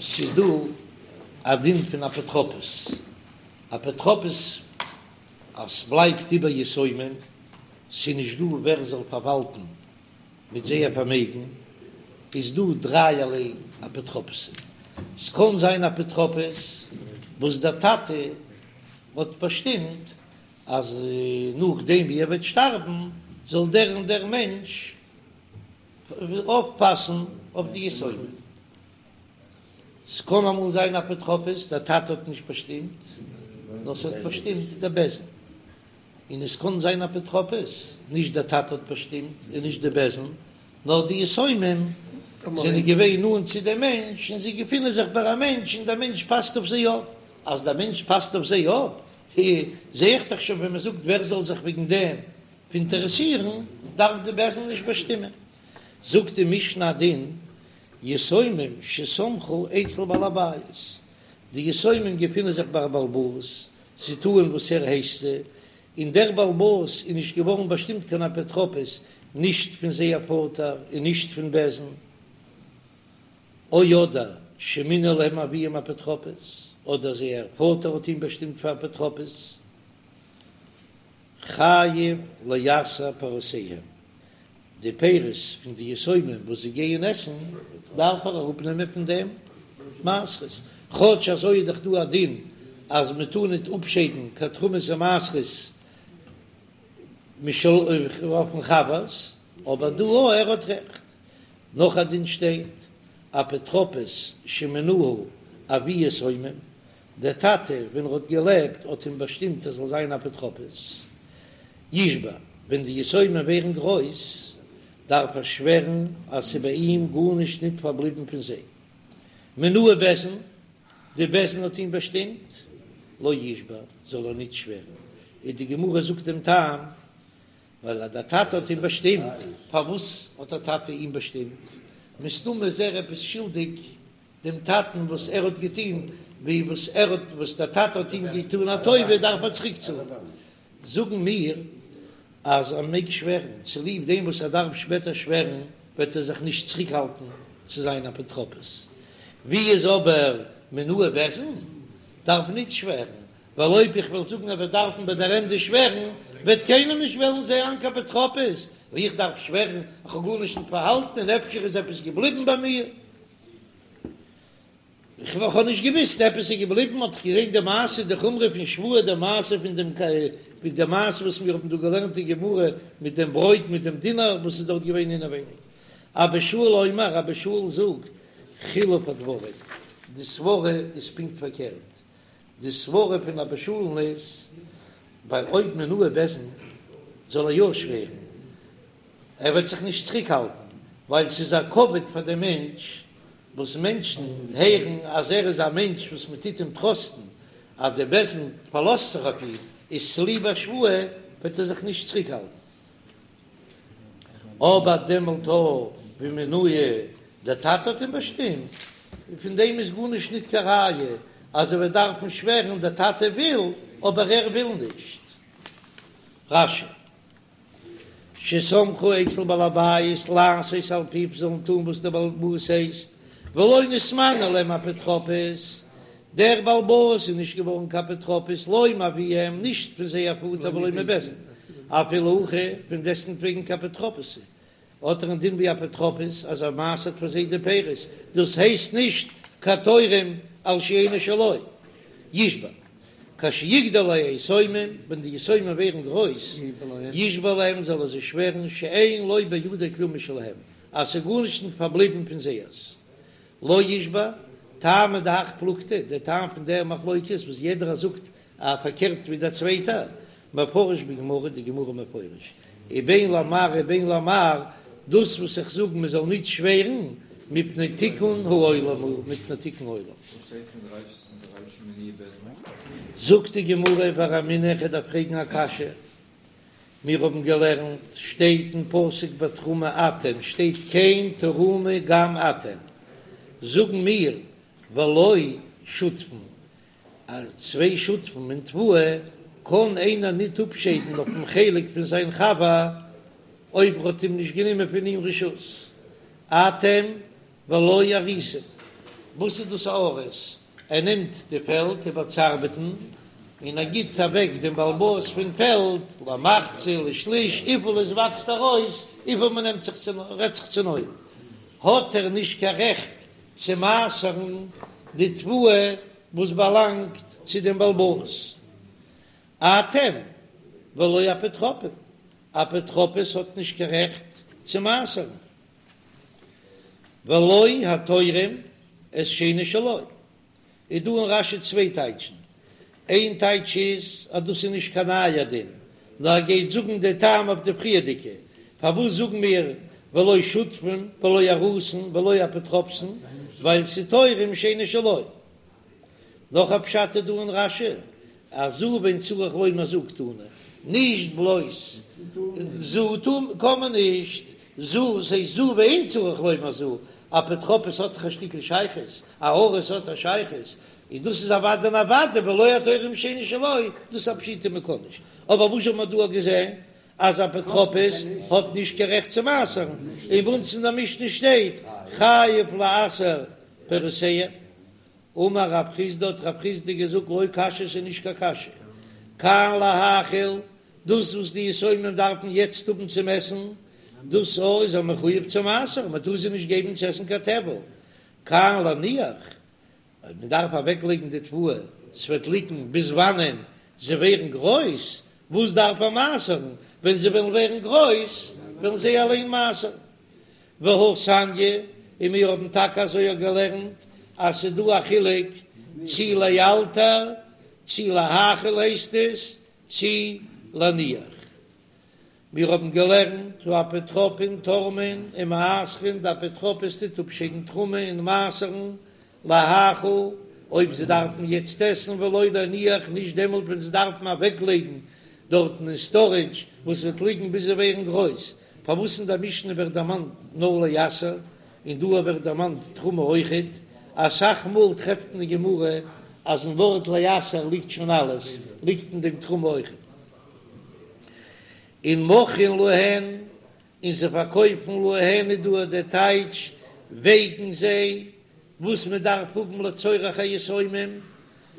ס'איז דא א דין פון אפוטרופוס, אפוטרופוס אז ס'בלייבט איבער יתומים, ס'איז נישט דא ווער זאל פארוואלטן מיט זייער פארמעגן, איז דא דרייערליי אפוטרופוסים, ס'קען זיין אפוטרופוס וואס דער טאטע האט באשטימט אז נאכדעם ווי ער וועט שטארבן זאל דער און דער מענטש אויפפאסן אויף די יתומים. ס'קען אמאל זיין אפוטרופוס, דער טאטע האט נישט באשטימט, נאר ס'האט באשטימט דער בית דין. און עס קען זיין אפוטרופוס, נישט דער טאטע האט באשטימט און נישט די בית דין, נאר די יתומים זענען געווען נאנט צו דעם מענטש און זיי געפינען זיך ביי א מענטש און דער מענטש פאסט אויף זיי אויף. אז דער מענטש פאסט אויף זיי אויף, זע איך דאך שוין ווען מען זאגט ווער זאל זיך וועגן דעם אינטערעסירן, דארף די בית דין נישט באשטימען. זאגט די משנה א דין, יתומים שסמכו אצל בעל הבית, די יתומים געפינען זיך ביי א בעל הבית, זיי טוען וואס ער הייסט זיי, און דער בעל הבית איז נישט געווארן באשטימט קיין אפוטרופוס, נישט פון זייער פאטער און נישט פון בית דין, או אדער שמינה להם אביהם אפוטרופוס, אדער זייער פאטער האט אים באשטימט פאר אפוטרופוס, חייב לעשר פירותיהם, די פירות פון די יתומים וואס זיי גייען עסן, דארף ער אראפנעמען פון דעם מעשרות, כאטש אזוי איז דאך דא א דין אז מען טאר ניט אפשיידן קיין תרומות ומעשרות אויפן חבר'ס, אבער דא ער האט רעכט. נאך א דין שטייט, אפוטרופוס שמינהו אבי יתומים, דער טאטע ווען ער האט געלעבט האט אים באשטימט ער זאל זיין אפוטרופוס, ישבע, ווען די יתומים ווערן גרויס דארף ער שווערן אז ס'איז ביי אים גארנישט ניט פארבליבן פון זיי. מינהו בית דין, די בית דין האט אים באשטימט, לא ישבע, זאל ער ניט שווערן. און די גמרא זאגט דעם טעם, ווייל אז דער טאטע האט אים באשטימט, פארוואס האט דער טאטע אים באשטימט? מסתמא איז ער עפעס שולדיג דעם טאטן וואס ער האט געטון, ווי וואס ער האט וואס דער טאטע האט אים געטון א טובה דארף ער צוריק צאלן. זאגן מיר אז ער מעג שווערן, צוליב דעם וואס ער דארף שפעטער שווערן וועט ער זיך נישט צוריקהאלטן צו זיין אפוטרופוס. ווי איז אבער מינהו בית דין דארף ניט שווערן, ווייל אויב איך וועל זאגן ער וועט דארפן ביי דער ענדע שווערן, וועט קיינער נישט וועלן זיין קיין אפוטרופוס, ווייל איך דארף שווערן, איך האב גארנישט ניט פארהאלטן און אפשר איז עפעס געבליבן ביי מיר, איך האב נישט געוויסט עפעס איז געבליבן, האט איך געזען די מעשה, די חומרא פון שבועה, די מעשה פון דעם מיט די מעשה וואס מיר האבן דא געלערנט אין גמרא מיט דעם ברויט מיט דעם דינר וואס איז דארט געווען אינעווייניג. אבא שאול אומר, אבא שאול זאגט, חילוף הדברים, די סברה איז פונקט פארקערט, די סברה פון אבא שאול'ן איז, ווייל אויב מינהו בית דין זאל ער יא שווערן, ער וועט זיך נישט צוריקהאלטן, ווייל ס'איז א כבוד פאר דעם מענטש, וואס מענטשן הערן אז ער איז א מענטש וואס מען טוט אים טראסטן, אז דער בית דין פארלאזט זיך אויף אים, איז צוליב א שבועה וועט ער זיך נישט צוריקהאלטן. אבער דעמאלט ווי מינהו דער טאטע האט אים באשטימט, און פון דעם איז גארנישט ניט קיין ראיה אז ער וועט דארפן שווערן, דער טאטע וויל, אבער ער וויל נישט. רש"י. שסמכו אצל בעל הבית לעשות על פיו זאלן טון וואס דער בעל הבית הייסט, ולא נתמנה להם אפוטרופוס, דער בעל הבית איז נישט געווארן קיין אפוטרופוס לא מאביהם נישט פון זייער פאטער ולא מבית דין, אפילו הכי פון דעסטנטוועגן כאפוטרופוס האט ער א דין ווי אפוטרופוס אז ער מעשר'ט פאר זיי די פירות, דאס הייסט נישט קיין תורם על שאינו שלו, ישבע כשיגדלו היתומים, ווען די יתומים ווערן גרויס, ישבע להם זאל ער זיי שווערן שאין לו בידו כלום משלהם, אז ס'איז גארנישט נישט פארבליבן פון זייערס. לא ישבע, טעמא דהך פלוגתא, דער טעם פון דער מחלוקת וואס יעדער זאגט א פארקערט ווי דער צווייטער, מפרש בגמרא, די גמרא מפרש, ובין למר ובין למר, דאס וואס איך זאג מען זאל נישט שווערן, מפני תיקון העולם הוא, מפני תיקון העולם. וואס שטייט פון די רייש אין די רישא מינוהו בית דין? זאגט די גמרא ורמינהו איך דארף פרעגן א קשיא, מיר האבן געלערנט, שטייט אין פסוק בתרומה אתם, שטייט כן תרימו גם אתם, זאגן מיר ולא שותפין, אז צוויי שותפים אין תבואה קען איינער ניט אפשיידן אויפן חלק פון זיין חבר אויב ער האט אים נישט גענומען פון אים רשות, אתם ולא אריסין. וואס איז דאס א אריס? ער נעמט די פעלד איבער צו ארבעטן, און ער גיט אוועק דעם בעל הבית פון פעלד למחצה לשליש, וויפיל עס וואקסט ארויס, וויפיל מען נעמט זיך צו, רעדט זיך צונויף, האט ער נישט קיין רעכט צו מעשר'ן די תבואה וואס באלאנגט צו דעם בעל הבית. אתם ולא אפוטרופין, אפוטרופוס האט נישט קיין רעכט צו מעשר'ן. ולא התורם את שאינו שלו, איז דא אין רש"י צוויי טייטשן, איין טייטש איז אז דאס איז נישט קיין נייער דין, נאר ער גייט זאגן די טעם אויף די פריערדיגע, פארוואס זאגן מיר ולא שותפין ולא אריסין ולא אפוטרופסין, ווייל ס'איז תורם שאינו שלו. נאך א פשט איז דא אין רש"י, אז זו ואין צריך לומר זו קתני, נישט בלויז זו קען מען נישט, זו ס'הייסט זו ואין צריך לומר זו, אפוטרופוס האט דאך א שטיקל שייכות, א אריס האט א שייכות, און דאס איז אוודאי און אוודאי ולא התורם שאינו שלו, דאס איז א פשיטא מען קען נישט, אבער וואס האט מען דא געזען אז אפוטרופוס האט נישט קיין רעכט צו מעשר'ן, און ביי אונז אין די משנה שטייט חייב לעשר פירותיהם. אמר רב חסדא האט רב חסדא געזאגט לא קשיא ס'איז נישט קיין קשיא, כאן להאכיל, דאס וואס די יתומים דארפן יעצט האבן צום עסן, דאס א איז ער מחויב צו מעשר'ן, מען טאר זיי נישט געבן צו עסן קיין טבל, כאן להניח, אויב מען דארף אוועק לייגן די תבואה, ס'וועט ליגן ביז וואנען זיי ווערן גרויס, וואס דארף ער מעשר'ן, ווען זיי וועלן ווערן גרויס וועלן זיי אליין מעשר'ן. והא תניא, און מיר האבן טאקע אזוי אויך געלערנט אז ס'איז דא א חילוק צי לאלתר צי להאכיל הייסט עס צי להניח. מיר האבן געלערנט האפוטרופין תורמין ומעשרין, די אפוטרופוס טוט אפשיידן תרומה און מעשר'ן להאכיל אויב זיי דארפן יעצט עסן ולא להניח נישט דעמאלט ווען זיי דארפן אוועקלייגן דארטן אין סטארעדזש וואס וועט ליגן ביז זיי ווערן גרויס. פארוואס אין די משנה ווערט דערמאנט נאר לעשר און דא ווערט דערמאנט תרומה אויכעט? אסאך מאל טרעפט מען אין גמרא אז אין ווארט לעשר ליגט שוין אלעס, ליגט אין דעם תרומה אויכעט. און מוכרין להן, און זיי פארקויפן להן איז דא דער טייטש וועגן זיי, וואס מען דארף האבן לצורך היתומים,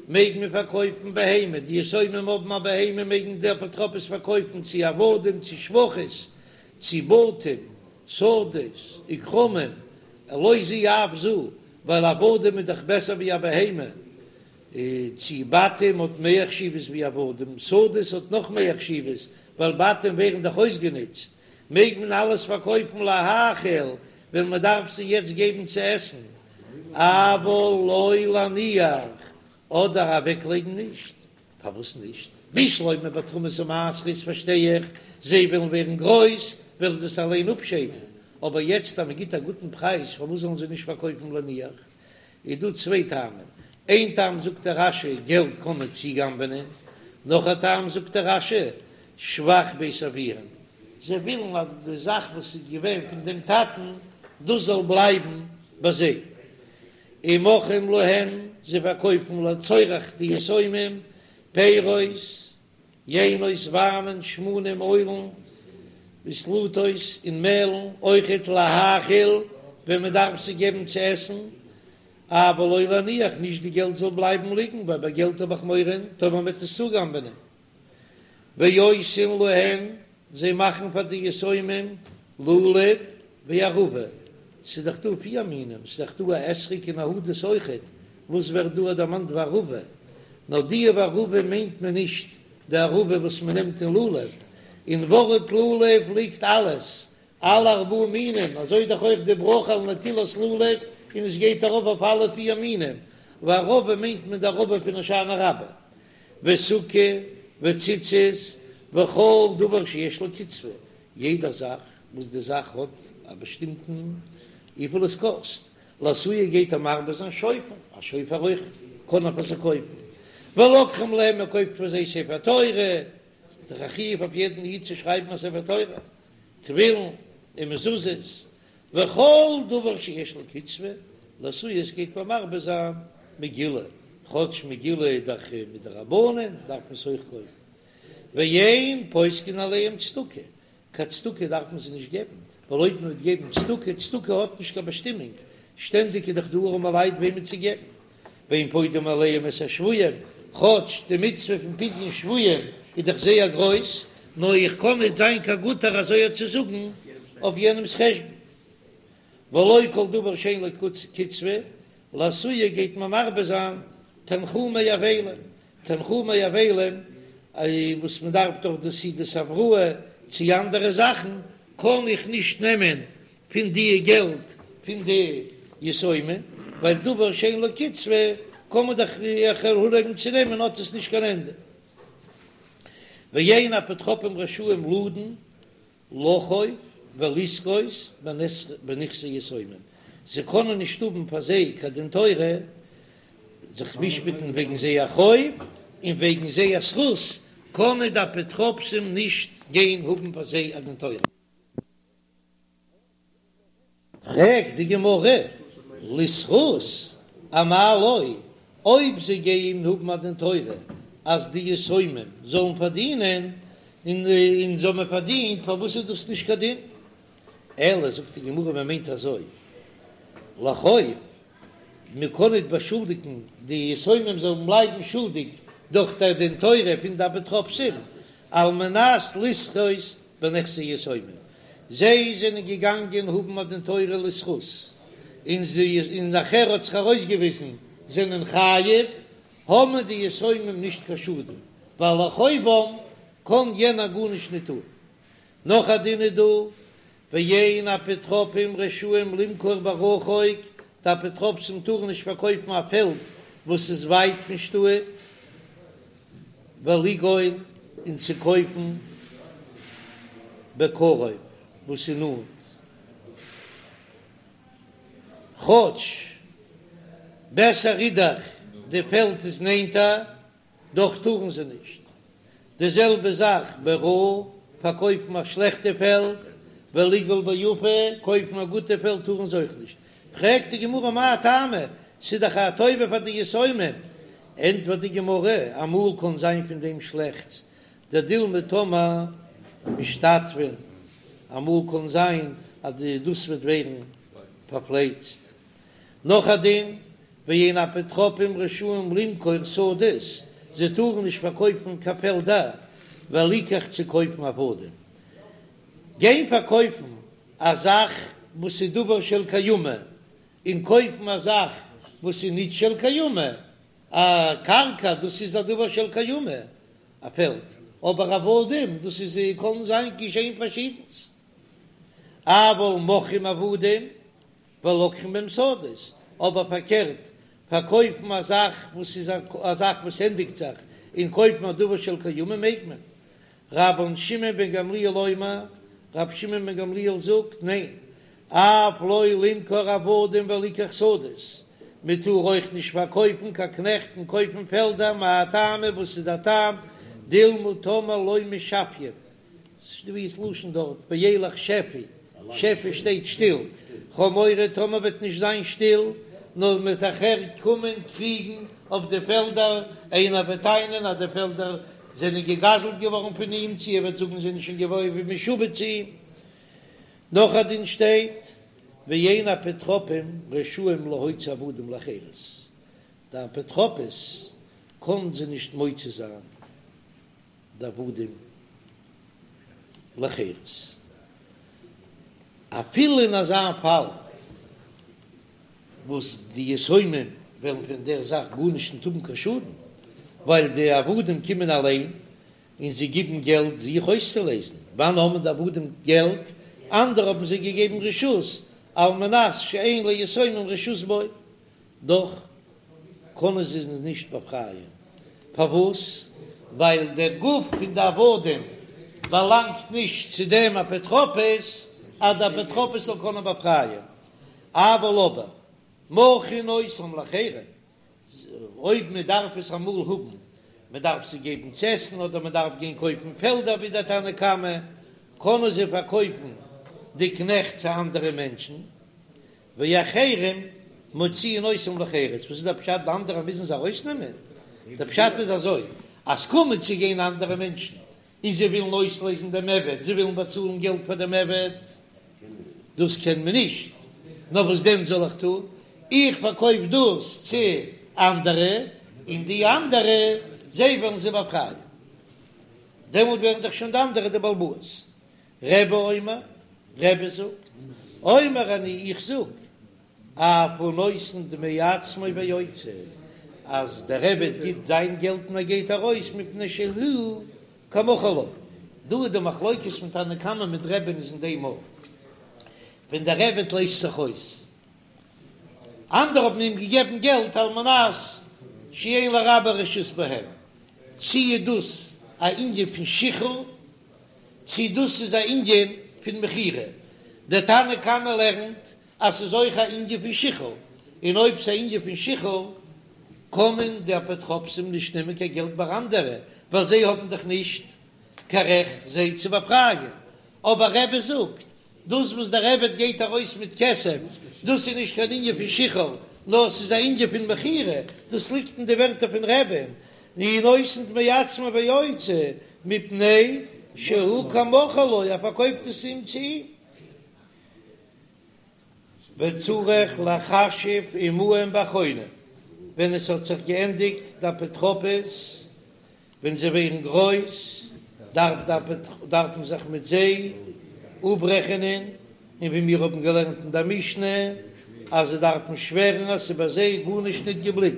מעג מען פארקויפן בהמה, די יתומים האבן א בהמה מעגן די אפוטרופוס פארקויפן צו עבדים צו שפחות צו בתים שדות וכרמים, לא זו אף זו, ווייל עבדים איז דאך בעסער ווי א בהמה, צו בתים האט מער חשיבות ווי עבדים, שדות האט נאך מער חשיבות, ווייל בתים ווערן דאך אויסגענוצט, מעג מען אלעס פארקויפן להאכיל ווען מען דארף זיי יעצט געבן צו עסן, אבל לא להניח, אדער אוועקלייגן נישט, פארוואס נישט? בשלמא ביי תרומות ומעשרות פארשטיי איך, זיי וועלן ווערן גרויס, וועלן זיי עס אליין אפשיידן, אבער יעצט אז מען גיט א גוטן פרייז פארוואס זאלן זיי נישט פארקויפן להניח? איז דא צוויי טעמים, איין טעם זאגט דער רש"י געלט קען מען צוגנב'נען, נאך א טעם זאגט דער רש"י שבח בית אביהן, זיי ווילן אז די זאך וואס איז געווען פון דעם טאטן דאס זאל בלייבן ביי זיי, ומוכרים להן, זיי פארקויפן לצורך די יתומים, פירות, יינות, וויינען, שמנים, אוילן, וסלתות און מעלן, אויכעט להאכיל, ווען מען דארף זיי געבן צו עסן, אבל לא להניח, נישט די געלט זאל בלייבן ליגן, ווייל ביי געלט האב איך מורא טאמער מען וועט עס צוגנב'נען. ועושין להן, זיי מאכן פאר די יתומים לולב וערבה, ס'איז דאך דא פיר מינים, ס'איז דאך דא א אתרוג און א הדס אויכעט, וואס ווערט דא דערמאנט וערבה? נאר די וערבה מיינט מען נישט די ערבה וואס מען נעמט אין לולב, אין ווארט לולב ליגט אלעס, אלע ארבעה מינים, אזוי דאך אויך די ברכה על נטילת לולב, און עס גייט ארויף אויף אלע פיר מינים, וערבה מיינט מען די ערבה פון הושענא רבה, וסוכה וציצית וכל דבר שיש לו קצבה, יעדע זאך וואס די זאך האט א באשטימטן וויפיל עס קאסט, לאתויי גייט ער מרבה זיין שופר, א שופר אויך קען ער פאר זיי קויפן, ולוקחים להם מען קויפט פאר זיי ספר תורה, איז דאך א חיוב אויף יעדן איד צו שרייבן א ספר תורה, תפילין און מזוזות, וכל דבר שיש לו קצבה, לאתויי עס גייט מען מרבה זיין מגילה, כאטש מגילה איז דאך מדרבנן דארף מען עס אויך קויפן, ואין פוסקין עליהם צדקה, קיין צדקה דארף מען זיי נישט געבן, ווייל אויב מען וועט געבן צדקה, צדקה האט נישט קיין באשטימונג, שטענדיג איז דאך דא ארעמע לייט וועמען צו געבן, ואין פודים עליהם את השבויים, כאטש די מצוה פון פדיון שבויים איז דאך זייער גרויס, נאר איך קען ניט זיין קיין גוטער אזוי צו זאגן אויף יענעמ'ס חשבון. ולא כל דבר שאין לו קצבה, לאתויי גייט מען מרבה זיין תנחומי אבלים, תנחומי אבלים וואס מען דארף דאך די סעודת הבראה צו אנדערע זאכן, קען איך נישט נעמען פון די געלט פון די יתומים, ווייל דבר שאין לו קצבה קען מען דאך איך אנהויבן צו נעמען האט עס נישט קיין ענדע. ואין אפוטרופים רשאים לדון לחוב ולזכות בנכסי יתומים, זיי קענען נישט האבן פאר זיי קיין דין תורה, זיך משפט'ן וועגן זייער חוב און וועגן זייער זכות, קענען די אפוטרופסים נישט גיין האבן פאר זיי א דין תורה. פרעגט די גמרא, לזכות אמאי לא, אויב זיי גייען האבן א דין תורה אז די יתומים זאלן פארדינען, און זיי האבן פארדינט, פארוואס איז דאס נישט קיין דין? אלא זאגט די גמרא, מען מיינט אזוי, לחוב, מען קען ניט באשולדיגן די יתומים זאלן בלייבן שולדיג דורך דער דין תורה פון די אפוטרופסים, על מנת לזכות בנכסי יתומים, זיי זענען געגאנגען האבן א דין תורה לזכות, און זיי און נאכער האט זיך ארויסגעוויזן זענען חייב, האבן די יתומים נישט קיין שאדן, ווייל לחובם קען יענער גארנישט ניט טאן. נאך א דין איז דא, ואין אפוטרופים רשאים למכור ברחוק, די אפוטרופסים טארן נישט פארקויפן א פעלד וואס איז ווייט פון שטאט, ולגאול און צו קויפן בקרוב וואס איז נאנט, כאטש בעסער איז דאך די פעלד איז נענטער, דאך טארן זיי נישט. די זעלבע זאך ברעה, פארקויפן א שלעכטע פעלד, ולגאול ביפה, קויפן א גוטע פעלד טארן זיי אויך נישט. פרעגט די גמרא מאי טעמא, ס'איז דאך א טובה פאר די יתומים. ענטפערט די גמרא, אמאל קען זיין פון דעם שלעכטס, דדילמא טאמער משתטפין, אמאל קען זיין אז דאס וועט ווערן פארפלייצט. נאך א דין, ואין אפוטרופים רשאים למכור שדות, זיי טארן נישט פארקויפן קיין פעלדער, וליקח צו קויפן עבדים. גיין פארקויפן א זאך וואס איז דבר של קיימא, און קויפן א זאך וואס איז נישט של קיימא, א קרקע דאס איז א דבר של קיימא, א פעלד, אבער עבדים דאס איז קען זיין געשען פארשידנס. אבל מוכרים עבדים ולוקחים בהם שדות, אבער פארקערט, פארקויפן א זאך וואס איז א זאך וואס ענדיגט זיך, און קויפן א דבר של קיימא מעג מען. רבן שמעון בן גמליאל אומר, רבי שמעון בן גמליאל זאגט, ניין, אף לא למכור עבדים וליקח שדות, מען טאר אויך נישט פארקויפן קיין קנעכט און קויפן פעלדער, מאי טעמא, וואס איז דער טעם, דילמא טאמער לא משפיין, ס'איז דא ס'לשון דארט, וילך שפי, שפי שטייט שטיל, כ'האב מורא טאמער וועט נישט זיין שטיל, נאר מ'וועט נאכער קומען קריגן אויף די פעלדער, איינער וועט טענה'ן אז די פעלדער זענען געגזלט געווארן פון אים, צו ער וועט זאגן זענען שוין געווארן ווי משועבד צו אים. נאך א דין שטייט, ואין אפוטרופים רשאים להוציא עבדים לחירות, די אפוטרופוס קען זיי נישט מוציא זיין די עבדים לחירות, אפילו אין אזא פאל וואס די יתומים וועלן פון דער זאך גארנישט נישט האבן קיין שאדן, ווייל די עבדים קומען אליין און זיי גיבן געלט זיך אויסצולעזן, וואנען האבן די עבדים געלט? אנדערע האבן זיי געגעבן רשות על מנת שאין ליתומים רשות בו. דאך קענען זיי נישט באפרייען. פארוואס? ווייל דער גוף פון די עבדים באלאנגט נישט צו דעם אפוטרופוס, אז דער אפוטרופוס זאל קענען באפרייען. אבל אבער מוכרין אותם לאחרים, אויב מען דארף עס אמאל האבן, מען דארף זיי געבן צו עסן אדער מען דארף גיין קויפן פעלדער ווי דער תנא קמא, קענען זיי פארקויפן די קנעכט צו אנדערע מענטשן, ואחרים מוציאין אותם לחירות, וואס איז דער פשט די אנדערע מוזן זיי ארויסנעמען? דער פשט איז אזוי, אז קומען צו גיין אנדערע מענטשן און זיי ווילן אויסלעזן דעם עבד, זיי ווילן באצאלן געלט פאר דעם עבד, דאס קען מען נישט. נאר וואס דען זאל איך טון, איך פארקויף דאס צו אנדערע, און די אנדערע זיי וועלן זיי באפרייען, דעמאלט ווערן דאך שוין די אנדערע די בעל הבית. רבי אומר, רבי זאגט, אומר אני איך זאג, אף הוא נותן דמי עצמו ויוצא, אז דער עבד גיט זיין געלט און ער גייט ארויס מפני שהוא כמכור לו. דא איז די מחלוקת פון תנא קמא מיט רבי'ן איז אין דעם אויך, ווען דער עבד לייזט זיך אויס, אנדערע האבן אים געגעבן געלט על מנת שאין לרבו רשות בהם, צי איז דאס א ענין פון שחרור צי דאס איז א ענין פון מכירה, דער תנא קמא לערנט אז ס'איז אויך א ענין פון שחרור, און אויב ס'איז א ענין פון שחרור קען מען די אפוטרופסים נישט נעמען קיין געלט ביי אנדערע, ווייל זיי האבן דאך נישט קיין רעכט זיי צו באפרייען, אבער רבי זאגט דאס וואס דער עבד גייט ארויס מיט כסף, דאס איז נישט קיין ענין פון שחרור, נאר ס'איז א ענין פון מכירה, דאס ליגט אין די ווערטער פון רבי'ן, הוא נותן דמי עצמו ויוצא, מפני שהוא כמכור לו, ער פארקויפט עס אים צו אים. וצריך לחשב עמהם באחרונה, ווען עס האט זיך געענדיגט די אפוטרופוס, ווען זיי ווערן גרויס דארף דארף מען זיך מיט זיי אפרעכענען, און ווי מיר האבן געלערנט אין דער משנה אז זיי דארפן שווערן אז ס'איז ביי זיי גארנישט ניט געבליבן.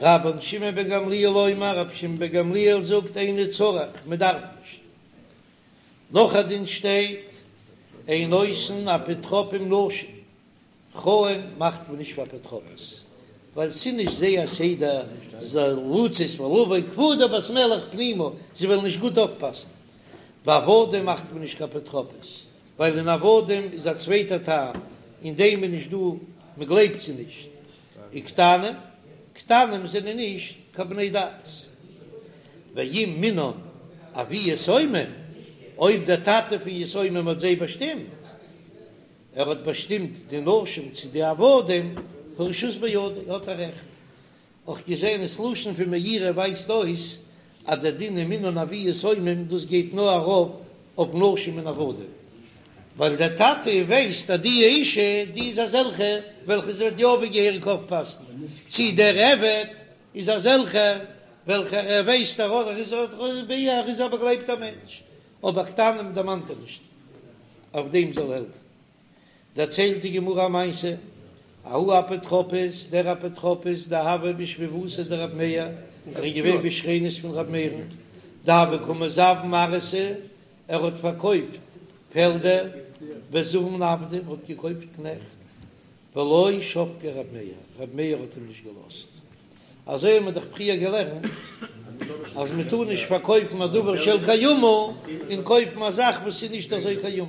רבן שמעון בן גמליאל אומר, רבי שמעון בן גמליאל זאגט אינו צריך, מען דארף נישט. נאך א דין שטייט, אין עושין אפוטרופים נשים, פרויען מאכט מען נישט פאר אפוטרופוס, ווייל ס'איז נישט זייער סדר לצאת ולבוא כבודה בת מלך פנימה, זיי וועלן נישט גוט אויפפאסן. ועבדים מאכט מען נישט קיין אפוטרופוס, ווייל אין עבדים איז א צווייטער טעם, אין דעם איז נישט דא, מען גלייבט זיי נישט. וקטנים, קטנים זענען נישט קיין בני דעת. ואם מינן אבי יתומים, אויב דער טאטע פון יתומים האט זיי באשטימט, ער האט באשטימט די נשים צו די עבדים, הרשות בידו, האט ער רעכט. אויך געזען ס'לשון פון מאירי ווייזט אויס אז דער דין אם מינן אבי יתומים דאס גייט נאר ארויף אויף נשים און עבדים, ווייל דער טאטע ווייסט אז די אישה די איז אזעלכע וועלכע זי וועט יא ווי געהעריג אויפפאסן, צי דער עבד איז אזעלכער וועלכער ער ווייסט ער איז ער איז א באגלייבטער מענטש, אבער קטנים דערמאנט ער נישט. אויף דעם זאל העלפן. דערציילט די גמרא א מעשה, ההוא אפוטרופוס, דער אפוטרופוס דהוה בשכיבותיה דרב מאיר, ער איז געווען בשכנות פון רב מאיר'ן, דהוה קא מזבין ארעתא, ער האט פארקויפט פעלדער, וזבין עבדי, האט געקויפט קנעכט, ולא שבקיה רב מאיר, רב מאיר האט אים נישט געלאזט. אזוי האבן מיר דאך פריער געלערנט אז מען טאר נישט פארקויפן א דבר של קיימא און קויפן א זאך וואס איז נישט אזוי קיימא.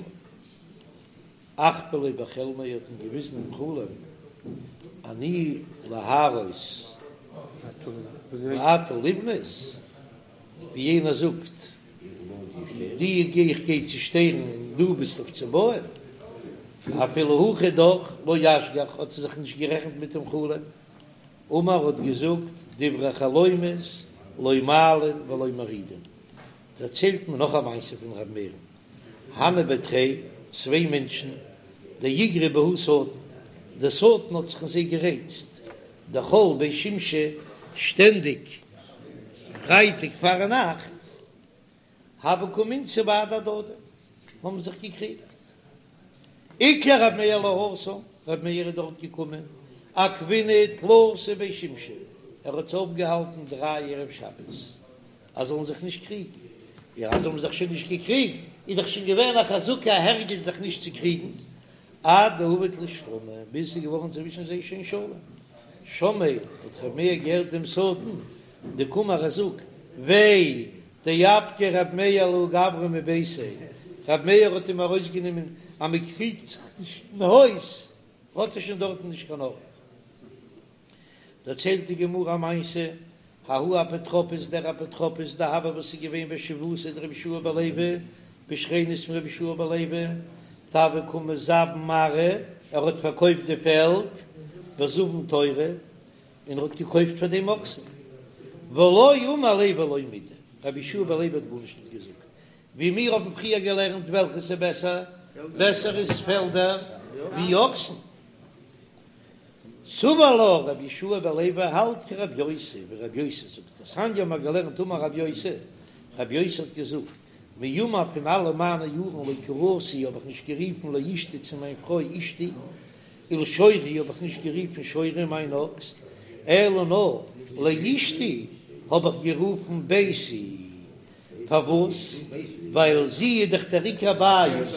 אחוו ליה בחלמיה האט אים געוויזן אין חלום אני להרוס ואתה לבנות, ווי יענער זאגט די גיי איך גיי צושטערן און דו ביסט אויף צו בויען, אפילו הכי דאך לא אשגח האט ער זיך נישט גערעכנט מיט דעם חלום, אמר האט געזאגט דברי חלומות לא מעלין ולא מורידין, דערציילט מען נאך א מעשה פון ר' מאיר'ן, הנהו בי תרי, צוויי מענטשן, דאיגרי בהו שטן, דער שטן האט זיך אין זיי גערייצט, דכל בי שמשי, שטענדיג פרייטאג פארנאכט, הוו קא מינתו בהדי הדדי, האבן זיך געקריגט. איקלע רב מאיר להתם, רב מאיר איז דארט געקומען, עכבינהו תלתא בי שמשי, ער האט זיי אפגעהאלטן דריי ערב שבת, אז זאלן זיך נישט קריגן, און אז זיי האבן זיך שוין נישט געקריגט, איז דאך שוין געווען א חזקה א הרגל זיך נישט צו קריגן, עד דעבד להו שלמא, ביז ס'איז געווארן צווישן זיי שוין שלום. שמעיה, האט ר' מאיר געהערט דעם שטן, דקאמר ער זאגט, וויי, דאפקיה רב מאיר לההוא גברא מביתיה, רב מאיר האט אים ארויסגענומען אז מען קריגט זיך נישט אין הויז, האט ער שוין דארטן נישט קיין ארט. דערציילט די גמרא א מעשה, ההוא אפוטרופוס, דער אפוטרופוס דהוה וואס איז געווען בשכיבותיה דרבי יהושע בן לוי, בשכנות פון רבי יהושע בן לוי, דהוה קא מזבין ארעא, ער האט פארקויפט די פעלד, וזבין תורי, און ער האט געקויפט פאר דעם אקסן, ולא אמר ליה ולא מידי, רבי יהושע בן לוי האט גארנישט נישט געזאגט, ווי מיר האבן פריער געלערנט וועלכעס איז בעסער, בעסער איז פעלדער. ווי אקסן. סבר לה רבי יהושע בן לוי האלט כרבי יוסי, ווי רבי יוסי זאגט, דתניא האבן מיר געלערנט אמר רבי יוסי, רבי יוסי האט געזאגט, מימי פון אלע מיינע יארן לא קריתי האב איך נישט גערופן לאשתי צו מיין פרוי אשתי, ולשורי האב איך נישט גערופן שורי מיין אקס, אלא נאר לאשתי האב איך גערופן ביתי, פארוואס? ווייל זי איז דאך דער עיקר הבית,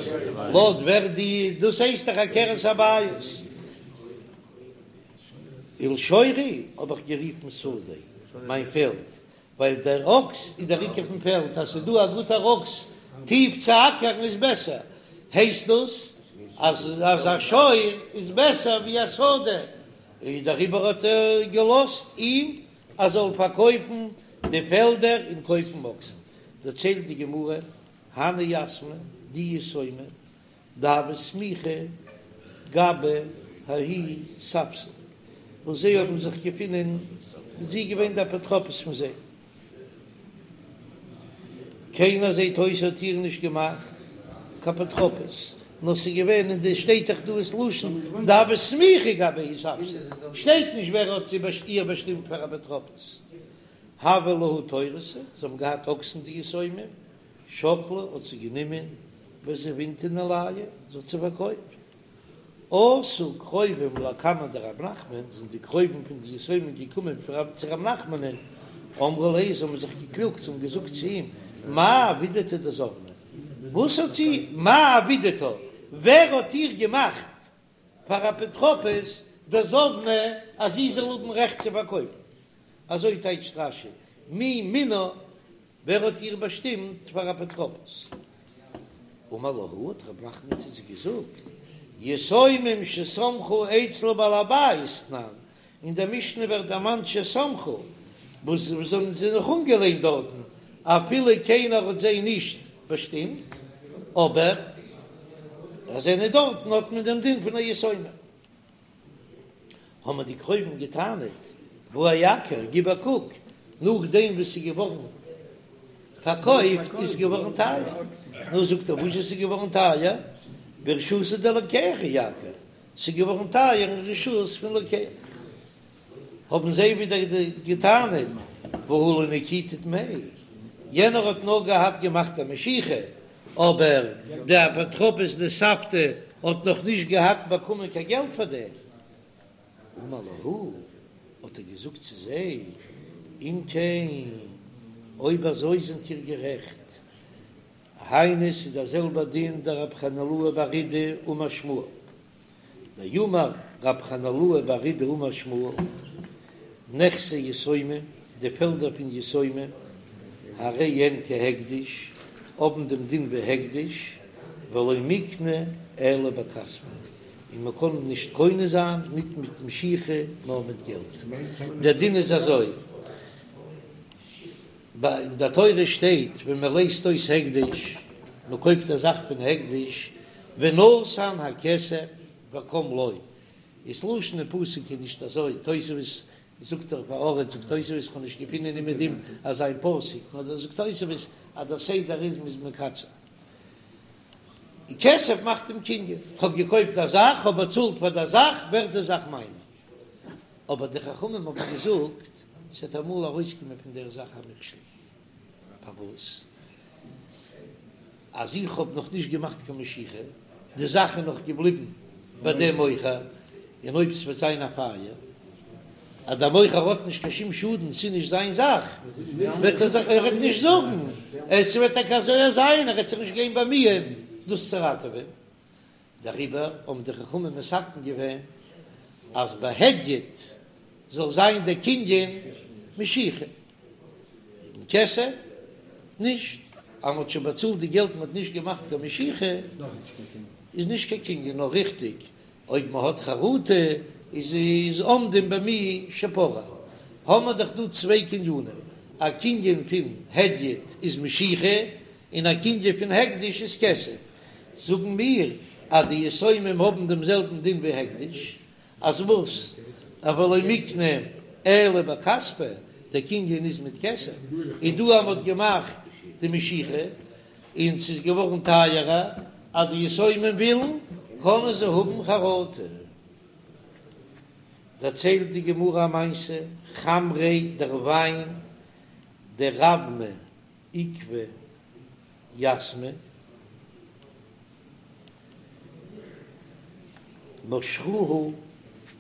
לויט ווער די, דאס הייסט דאך עקרת הבית. ולשורי האב איך גערופן שדי, מיין פעלד, ווייל דער אקס איז דער עיקר פון פעלד, אז ס'איז דא א גוטער אקס טיף צו אקערן איז בעסער, הייסט דאס אז אז א שור איז בעסער ווי א שדה, און דעריבער האט ער געלאזט אים ער זאל פארקויפן די פעלדער און קויפן אקסן. דערציילט די גמרא, הני יתמי, די יתומים, דהוו סמיכי גבי ההוא ספסל, וואס זיי האבן זיך געפונען, זי איז געווען די אפוטרופוס פון זיי. קיינער זעט אויס האט איר נישט געמאכט קיין אפוטרופוס, נאר ס'איז געווען אין די שטייט דאך דא ס'לשון דהוו סמיכי גבי ההוא ספסל, שטייט נישט ווער האט זי איר באשטימט פאר אפוטרופוס. הוה להו תורתא, זיי האבן געהאט אקסן די יתומים, שקלה האט זי גענומען וזבינתה ניהלייהו, זי האט זיי פארקויפט. אתו קרובים לקמיה דרב נחמן, זענען די קרובים פון די יתומים געקומען צו רב נחמנ'ן, אמרו ליה, זיי האבן זיך געקלאגט, זיי האבן געזאגט צו אים, מאי עבידתה דזבנה, וואס האט זי, מאי עבידתה, ווער האט איר געמאכט פאר אפוטרופוס דזבנה אז זי זאל האבן רעכט צו פארקויפן? אזוי טייטשט רש"י, מי מינה ווער האט איר באשטימט פאר אפוטרופוס? אמר להו, האט רב נחמן צו זיי געזאגט, יתומים שסמכו אצל בעל הבית תנן, אין דער משנה ווערט דערמאנט שסמכו, וואס זיי האבן זיך אנגעלענט דארטן, אפילו קיינער האט זיי נישט באשטימט, אבער אז זיי זענען דארטן האט מען דעם דין פון א יתומה. האבן די קרובים געטענה'ט, והא אייקר, גיב א קוק, נאכדעם וואס ס'איז געווארן פארקויפט איז געווארן טייער. נו, זאגט ער, וואס איז געווארן טייער? ברשותא דלוקח אייקר, ס'איז געווארן טייער אין רשות פון לוקח. האבן זיי ווידער געטענה'ט, והא לא נקיטו דמי, יענער האט נאר געהאט געמאכט א משיכה, אבער די אפוטרופוס די סבתא האט נאך נישט געהאט באקומען קיין געלט פאר דעם. אמר להו, האט ער געזאגט צו זיי, אם כן, אויב אזוי זענט איר גערעכט, היינו ס'איז דער זעלבער דין דרב חנילאי בר אידי אמר שמואל, דאמר רב חנילאי בר אידי אמר שמואל, נכסי יתומים, די פעלדער פון יתומים, הרי הן כהקדש, האבן דעם דין ווי הקדש, ולא מיקנו אלא בכספא, און מען קען נישט קונה זיין ניט מיט משיכה נאר מיט געלט. דער דין איז אזוי, אין דער תורה שטייט ווען מען לייזט אויס הקדש, מען קויפט א זאך פון הקדש, ונתן הכסף וקם לו, איז לשון אין פסוק איז נישט אזוי, תוספות זאגט דאך בארץ זאגט תוספות איך האב נישט געפינען אין דעם אזא פסוק, נאר דא זאגט תוספות אז דער סדר איז מ'איז מקצר. די כסף מאכט דעם קנין, כ'האב געקויפט א זאך, כ'האב באצאלט פאר דער זאך, ווערט די זאך מיינע. אבער די חכמים האבן געזאגט, ס'וועט אמאל ארויסקומען פון דער זאך א מכשול. פארוואס? אז איך האב נאך נישט געמאכט קיין משיכה, די זאך איז נאך געבליבן ביי דעם מוכר, און אויב ס'וועט זיין א פייער, אז דער מוכר האט נישט קיין שום שאדן, ס'איז נישט זיין זאך, וועט ער זיך ער וועט נישט זאגן, עס וועט טאקע אזוי זיין, ער וועט זיך נישט גיין באמיען דאס צו ראטעווען. דעריבער האבן די חכמים מתקן געווען אז ביי הדיוט זאל זיין דער קנין משיכה, און כסף נישט, אז מ'האט שוין באצאלט די געלט מ'האט נישט געמאכט קיין משיכה איז נישט קיין קנין, נאר ריכטיג אויב מ'האט חרטה איז איז עומדים במי שפרע, האמער דאך דא צוויי קנינים, א קנין פון הדיוט איז משיכה און א קנין פון הקדש איז כסף, זאגן מיר אז די יתומים האבן דעם זעלבן דין ווי הקדש, אז וואס? אבל לא מיקנו אלא בכספא, דער קנין איז מיט כסף, און דא אז מ'האט געמאכט די משיכה און ס'איז געווארן טייערער, אז די יתומים ווילן. קענען זיי האבן חרטה. דערציילט די גמרא א מעשה, חמרא דער וויין דרבנא עקבי יתמי, משכוהו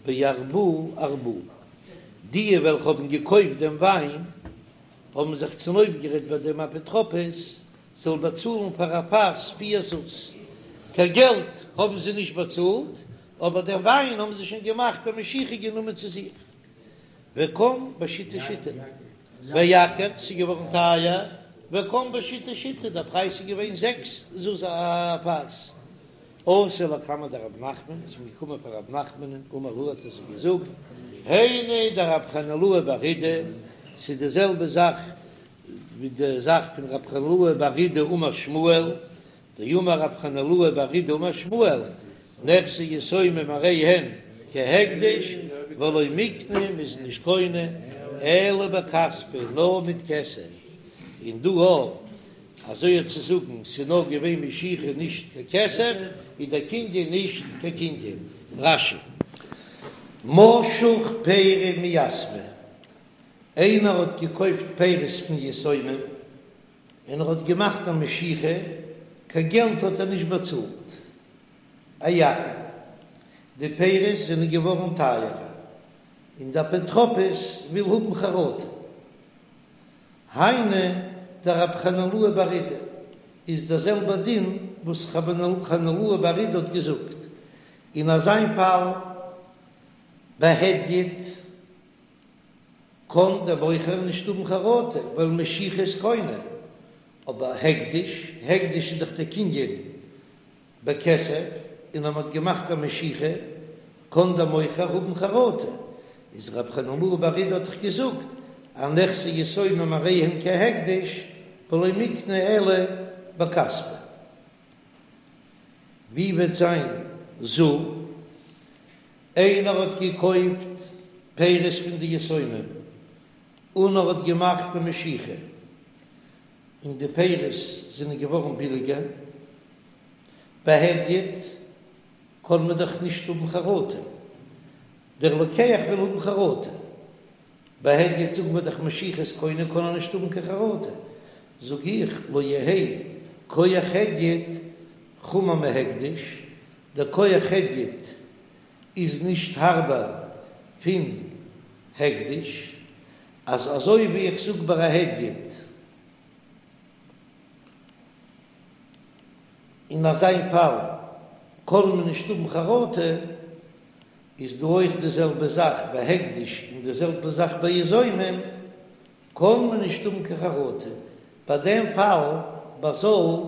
בארבעה ארבעה, די וועלכע האבן געקויפט דעם וויין האבן זיך צונויפגערעדט ביי דעם אפוטרופוס זאל באצאלן פאר א פאס פיר זוז, קיין געלט האבן זיי נישט באצאלט, אבער דעם וויין האבן זיי שוין געמאכט א משיכה גענומען צו זיך. וקם בשיתא שיתין, ואייקר, ס'איז געווארן טייער, וקם בשיתא שיתין, דער פרייז איז געווען זעקס זוז א פאס. אתו לקמיה דרב נחמן, איז מען געקומען פאר רב נחמנ'ן, אמר להו האט ער זיי געזאגט, היינו דרב חנילאי בר אידי, ס'איז די זעלבע זאך ווי די זאך פון רב חנילאי בר אידי אמר שמואל, דאמר רב חנילאי בר אידי אמר שמואל, נכסי יתומים הרי הן כהקדש ולא מיקני, מ'איז נישט קונה אלא בכספא, נאר מיט כסף, און דא אויך אזוי האט צו זאגן ס'איז נאר געווען משיכה נישט קיין כסף, איז דער קנין נישט קיין קנין. רש"י. משך פירי מיתמי, איינער האט געקויפט פירות פון יתומים און ער האט געמאכט א משיכה, קיין געלט האט ער נישט באצאלט, אייקר, די פירות זענען געווארן טייערער, און די אפוטרופוס וויל האבן חרטה. היינו דרב חנילאי בר אידי, איז דער זעלבער דין וואס רב חנילאי בר אידי האט געזאגט, אין אזיין פאל בהדיוט קען דער מוכר נישט האבן חרטה ווייל משיכה איז קונה, אבער הקדש, הקדש איז דאך דער קנין בכסף, און אז מען האט געמאכט א משיכה קען דער מוכר האבן חרטה, איז רב חנילאי בר אידי האט דאך געזאגט אז נכסי יתומים הרי הם כהקדש ולא מיקני אלא בכספא. ווי וועט זיין זול? איינער האט געקויפט פירות פון די יתומים און ער האט געמאכט א משיכה און די פירות זענען געווארן ביליגער, בהדיוט קען מען דאך נישט האבן חרטה, דער לוקח וויל האבן חרטה, בהדיוט זאגן מיר דאך משיכה איז קונה קען ער נישט האבן קיין חרטה, זאג איך לא יהא כח הדיוט חמור מהקדש, דער כח הדיוט איז נישט הארבער פון הקדש, אז אזוי ווי איך זאג ביי א הדיוט אין אזיין פאל קען מען נישט האבן חרטה, איז דא אויך די זעלבע זאך ביי הקדש און די זעלבע זאך ביי יתומים, קען מען נישט האבן קיין חרטה, ביי דעם פאל ביי זול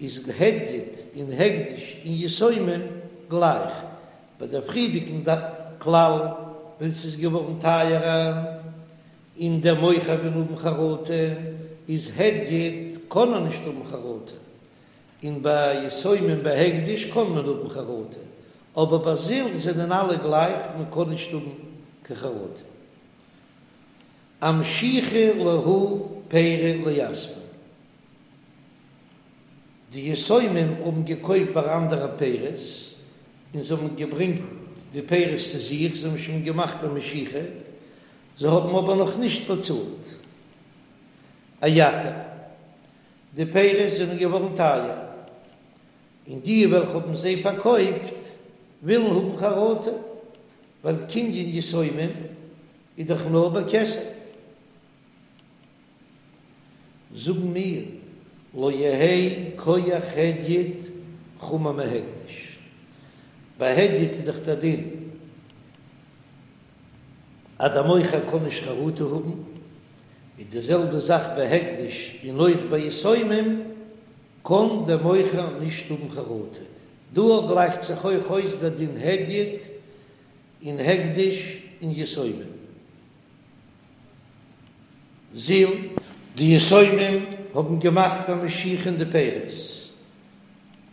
איז הדיוט און הקדש און יתומים גלייך, ביי דער פריערדיגן כלל ווען ס'איז געווארן טייערער און דער מוכר וויל האבן חרטה איז הדיוט קען ער נישט האבן חרטה, און ביי יתומים ביי הקדש קען מען האבן חרטה, אבער ביי זול זענען אלע גלייך מען קען נישט האבן קיין חרטה. אמשיכו להו פירי ליתמי. די יתומים האבן געקויפט ביי אנדערע פירות, און זיי האבן געברענגט די פירות צו זיך, זיי האבן שוין געמאכט א משיכה, זיי האבן אבער נאך נישט באצאלט. אייקר, די פירות זענען געווארן טייער, און די וועלכע האבן זיי פארקויפט ווילן האבן חרטה, ווייל קנין יתומים איז דאך נאר בכסף. זאגן מיר, לא יהא כח הדיוט חמור מהקדש. ביי הדיוט איז דאך דער דין אז דער מוכר קען נישט חרטה האבן, איז די זעלבע זאך ביי הקדש און אויך ביי יתומים קען דער מוכר נישט האבן חרטה. דא גלייכט זיך אויך אויס דער דין הדיוט און הקדש און יתומים. זיל. די יתומים האבן געמאכט א משיכה אין די פירות,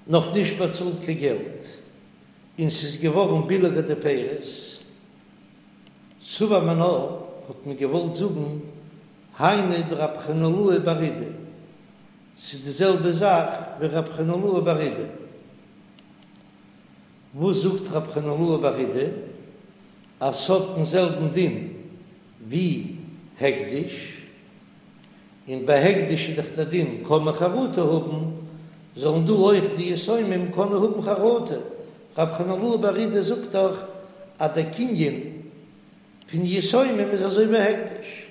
נאך נישט באצאלט קיין געלט, און ס'איז געווארן ביליגער די פירות. סבור מינה האט מען געוואלט זאגן היינו דרב חנילאי בר אידי, ס'איז די זעלבע זאך ווי רב חנילאי בר אידי. וואס זאגט רב חנילאי בר אידי אז ס'האט דעם זעלבן דין ווי הקדש, און ביי הקדש איז דאך דער דין קען מען חרטה האבן, זאלן דא אויך די יתומים קענען האבן חרטה, רב חנילאי בר אידי זאגט דאך אז דער קנין פון יתומים איז אזוי ווי הקדש.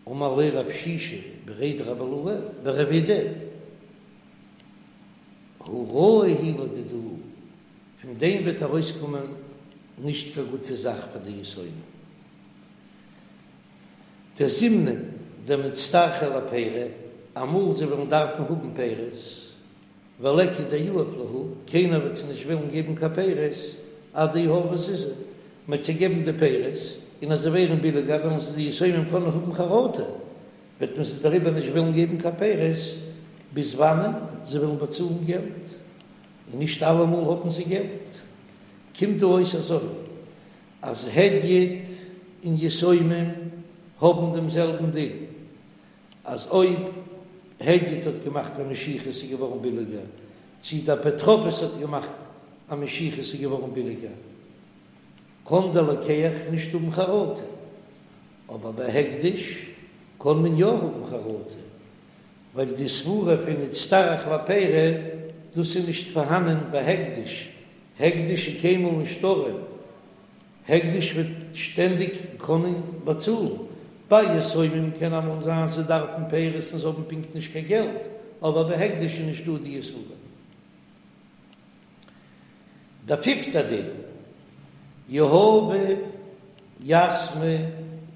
אמר ליה רב שישא בריה דרב אילעא לרב אידי, הא רעה היא לדידהו, פון דעם וועט ארויסקומען נישט קיין גוטע זאך פאר די יתומים. דזימנין דמצטרכי לפירי, אמאל זיי וועלן דארפן האבן פירות, וליכא דיהיב להו, קיינער וועט זיי נישט וועלן געבן קיין פירות, עד דיהבו זוזי, מ'וועט זיי געבן די פירות, און אז זיי ווערן ביליגער וועלן זיי די יתומים קענען האבן חרטה, וועט מען זיי דעריבער נישט וועלן געבן קיין פירות, ביז וואנען זיי וועלן באצאלן געלט, און נישט אלעמאל האבן זיי געלט. קומט דא אויס אזוי, אז הדיוט און יתומים האבן דעם זעלבן דין, אז אויב הדיוט האט געמאכט א משיכה ס'איז געווארן ביליגער, צי די אפוטרופוס האט געמאכט א משיכה ס'איז געווארן ביליגער, קען דער לוקח נישט האבן חרטה, אבער ביי הקדש קען מען יא האבן חרטה, ווייל די סברה פון נצטרך לפירי דאס איז נישט פארהאנען ביי הקדש, הקדש איז קיינמאל נישט ארעם, הקדש וועט שטענדיג קענען באצאלן, ביי יתומים קען אמאל זיין זיי דארפן פירות און זיי האבן פונקט נישט קיין געלט, אבער ביי הקדש איז נישטא די סברה. דער פיפטער דין, יהבו יתמי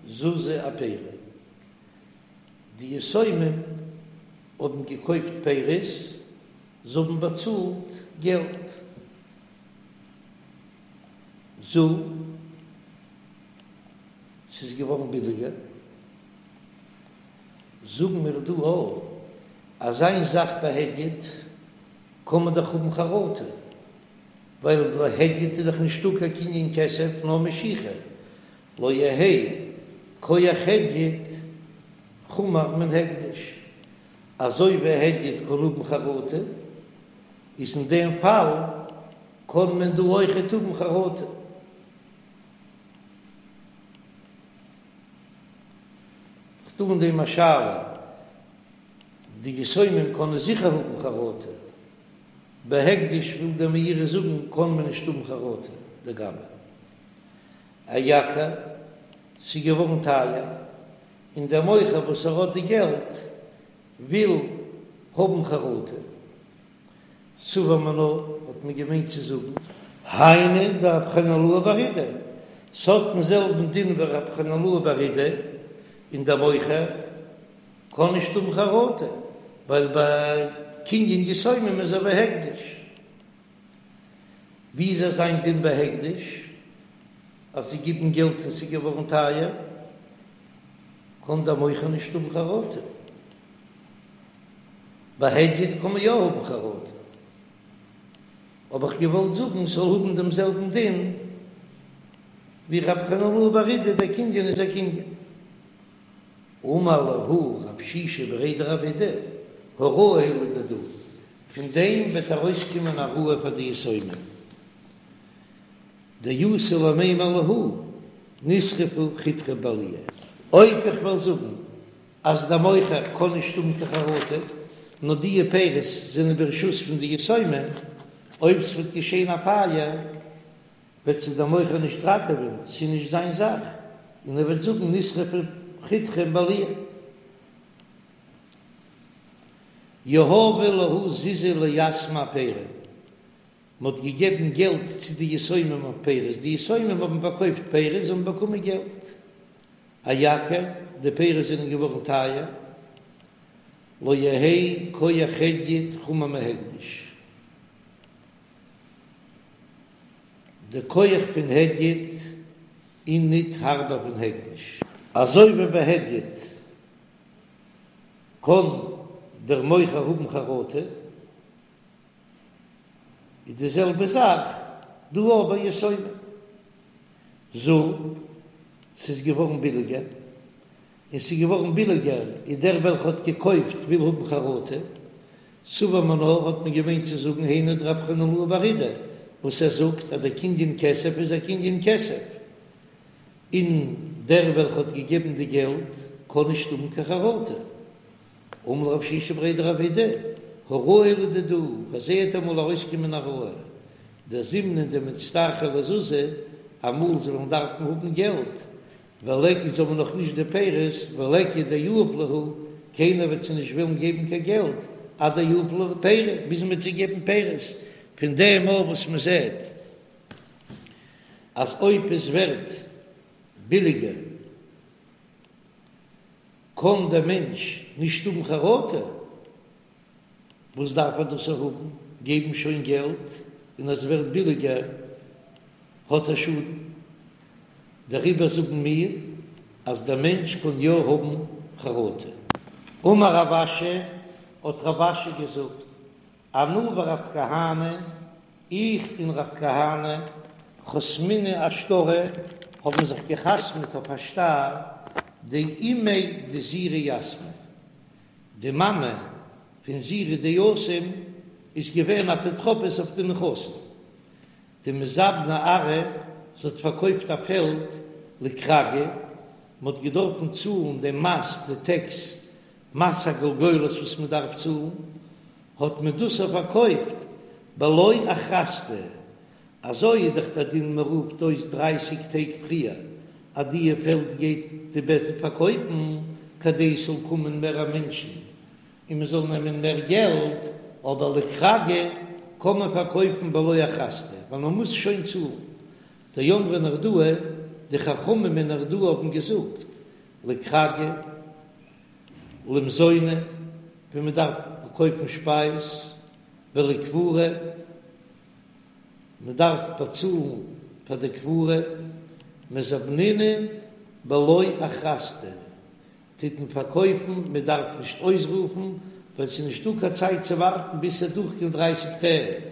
זוזי אפירי, די יתומים האבן געקויפט פירות, זיי האבן באצאלט געלט. זול, ס'איז געווארן ביליגער. זאגן מיר דא אויך אז איין זאך ביי הדיוט קען מען דאך האבן חרטה, ווייל ביי הדיוט איז דאך נישטא קיין קנין כסף נאר משיכה, לא יהא כח הדיוט חמור מן הקדש, אזוי ווי הדיוט קען האבן חרטה, איז אין דעם פאל קען מען דא אויכעט האבן חרטה. כ'טו אין דעם א שאלה, די יתומים קענען זיכער האבן חרטה, ביי הקדש וויל דער מאירי זאגן קען מען נישט האבן חרטה לגבי אייקר, ס'איז געווארן טייער, און דער מוכר וואס ער האט די געלט וויל האבן חרטה. סבור מינה האט מען געמיינט צו זאגן. היינו דרב חנילאי בר אידי, ס'האט דעם זעלבן דין ווי רב חנילאי בר אידי, און דער מוכר קען נישט האבן חרטה, ווייל ביי קנין יתומים איז אזוי ווי הקדש. ווי איז אזא דין ביי הקדש אז זיי גיבן געלט און ס'איז געווארן טייער, קען דער מוכר נישט האבן חרטה. ביי הדיוט קען מען יא האבן חרטה, האב איך געוואלט זאגן ס'זאל האבן דעם זעלבן דין ווי רב חנילאי בר אידי, דער קנין איז א קנין. אמר להו רב שישא בריה דרב אידי, הא רעה היא לדידהו, פון דעם וועט ארויסקומען א רעה פאר די יתומים, דאתו למימר להו נשרפו חיטכם בעלייה. אויב איך וועל זאגן אז דער מוכר קען נישט האבן קיין חרטה, נאר די פירות זענען ברשות פון די יתומים, אויב ס'וועט געשען א פייער וועט זיי דער מוכר נישט ראטעווען, ס'איז נישט זיין זאך, און ער וועט זאגן נשרפו חיטכם בעלייה. יהבו להו זוזי ליתמי אפירי, מ'האט געגעבן געלט צו די יתומים אויף פירות, די יתומים האבן פארקויפט פירות, זיי האבן באקומען געלט. אייקר, די פירות זענען געווארן טייער, לא יהא כח הדיוט חמור מהקדש, די כח פון הדיוט איז ניט הארבער פון הקדש. אזוי ווי ביי הדיוט קען דער מוכר האבן חרטה, איז די זעלבע זאך דא אויך ביי יתומים. זול, ס'איז געווארן ביליגער, און ס'איז געווארן ביליגער איז דער וועלכע האט געקויפט וויל האבן חרטה. סבור מינה האט מען געמיינט צו זאגן היינו דרב חנילאי בר אידי וואס ער זאגט אז דער קנין כסף איז א קנין כסף און דער וועלכע האט געגעבן די געלט קען נישט האבן קיין חרטה. אמר ליה רב שישא בריה דרב אידי, הוראה לדידהו, פאר זיי וועט אמאל ארויסקומען א הוראה, דזימנין דמצטרכי לזוזי, אמאל זיי וועלן דארפן האבן געלט, וליכא זיי האבן נאך נישט די פירות, וליכא דיהיב להו, קיינער וועט זיי נישט ווילן געבן קיין געלט, עד דיהיב להו פירי, ביז מען וועט זיי געבן פירות, פון דעם אויך וואס מען זעט אז אויב עס ווערט ביליגער קען דער מענטש נישט האבן חרטה, וואס דארף ער דאס האבן, געבן שוין געלט, און אז עס ווערט ביליגער האט ער שאדן, דעריבער זאגן מיר אז דער מענטש קען יא האבן חרטה. אמר רב אשי, האט רב אשי געזאגט, אנא ורב כהנא, איך און רב כהנא, חתמינהו אשטרא, האבן זיך געחתמעט אויף א שטר, דאימיה דזירא יתמא, די מאמע פון זירא די יתום איז געווען אפוטרופוס אויף די נכסים, דמזבנה ארעא, זי האט פארקויפט א פעלד לכרגא, מען האט געדארפן צאלן דעם מס, די טעקס, מס הגולגולת וואס מען דארף צאלן, האט מען דאס איר פארקויפט בלא אכרזתא, אזוי איז דאך דער דין מען רופט אויס דרייסיג טעג פריער אז דיע פעלד גייט די בית דין פארקויפן כדי עס זאל קומען מער מענטשן און מען זאל נעמען מער געלט, אבער לכרגא קען מען פארקויפן בלא אכרזתא ווייל מען מוז שוין צאלן. דאמרי נהרדעא, די חכמים אין נהרדעא האבן געזאגט לכרגא למזוני ווען מען דארף קויפן שפייז, ולקבורה, מען דארף באצאלן פאר די קבורה, מזבנינן בלא אכרזתא, טוט מען פארקויפן, מען דארף נישט אויסרופן, ווייל ס'איז נישטא קיין צייט צו ווארטן ביז ס'וועט דורכגיין דרייסיג טעג.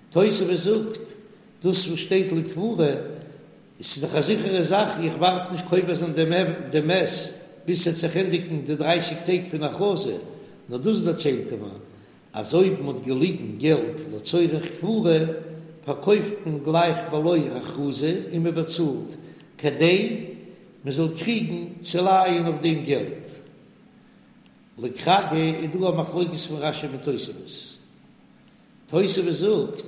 תוספות זאגט, דאס וואס שטייט לקבורה, עס איז דאך א זיכערע זאך, איך ווארט נישט קובר זיין דעם מת ביז ס'וועט זיך ענדיגן די דרייסיג טעג פון הכרזה, נאר דאס דערציילט ער מיר, אז אויב מ'האט געליגן געלט לצורך קבורה, פארקויפט מען גלייך בלא הכרזה און מ'באצאלט, כדי מ'זאל קריגן צו לייען אויף דעם געלט. לכרגא איז דא א מחלוקת פון רש"י מיט תוספות. תוספות זאגט,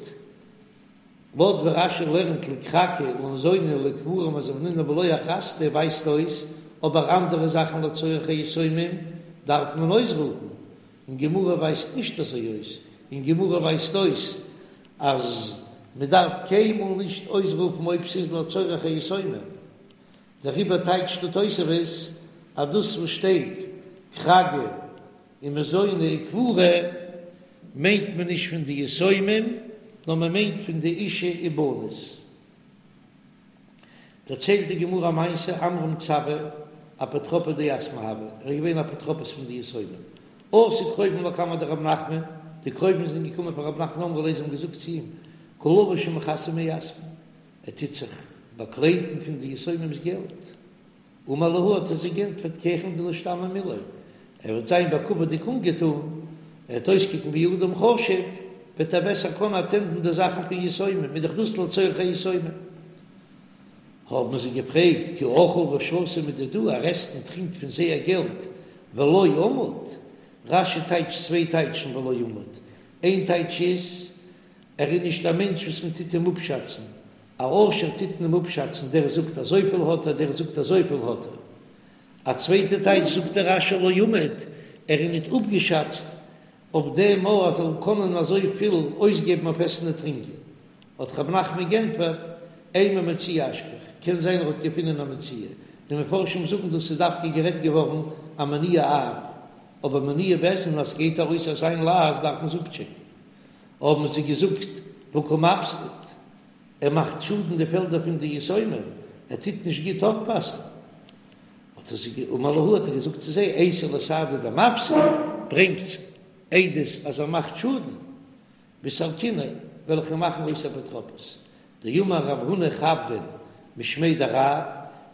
לויט ווי רש"י לערנט לכרגא למזוני לקבורה מזבנינן בלא אכרזתא ווייזט אויס, אבער אנדערע זאכן לצורך היתומים דארף מען אויסרופן, אין גמרא ווייזט נישט אזוי אויס, אין גמרא ווייזט אויס אז מען דארף קיינמאל נישט אויסרופן אויב ס'איז לצורך היתומים, דעריבער טייטשט די תוספות אז דאס וואס שטייט כרגא און מזוני וקבורה מיינט מען נישט פון די יתומים, נאר מען מיינט פון די אישה ובנות. דערציילט די גמרא א מעשה, עמרם צבא אפוטרופא דיתמי הוה, ער איז געווען אפוטרופוס פון די יתומים, אתו קרובים לקמיה דרב נחמן, די קרובים זענען געקומען פאר רב נחמן אמרו ליה זיי האבן געזאגט צו אים, קא לביש ומכסי מיתמי, ער טוט זיך באקליידן פון די יתומים'ס געלט. אמר להו האט ער זיי גענטפערט כי היכי דלישתמע מיליה, ער וועט זיין בכבוד'יג אנגעטון, ער וועט אויסקוקן ווי אדם חשוב, וועט ער בעסער קענען אטענדן די זאכן פון יתומים, איז דאך דאס לצורך היתומים. האבן זיי געפרעגט, כי אכיל ושתי מדידהו, ער עסט און טרינקט פון זייער געלט, ולא אמיד, רש"י טייטשט צוויי טייטשן ולא אמיד, איין טייטש איז, ער איז נישט א מענטש וואס מען טוט אים אפשאצן, א עושר טוט מען אים אפשאצן, דער זאגט אזויפיל האט ער, דער זאגט אזויפיל האט ער. א צווייטע טייטש זאגט דער רש"י לא אמיד, ער איז ניט אפגעשאצט אויף דעם אז ער זאל קענען אזויפיל אויסגעבן אויף עסן און טרינקען. האט רב נחמן גענטפערט, אימא מציאה אשכח, קען זיין ער האט געפונען א מציאה, די מפרשים זאגן דאס איז דווקא גערעדט געווארן א מינויי אב, אבער מינויי בית דין אז ס'גייט ארויס אזא מין לעז דארף מען עס אפטשעקן. האבן זיי געזאגט והא קא מפסיד, ער מאכט שאדן די פעלדער פון די יתומים, ער טוט נישט גוט אויפפאסן. האט ער זיי אמר להו האט ער געזאגט צו זיי, אייתו לי סהדי דמפסיד, ברענגטס עדות אז ער מאכט שאדן, וסלקיניה, וועל איך אים מאכן אויס אפוטרופוס. דאמר רב הונא חברין משמיה דרב,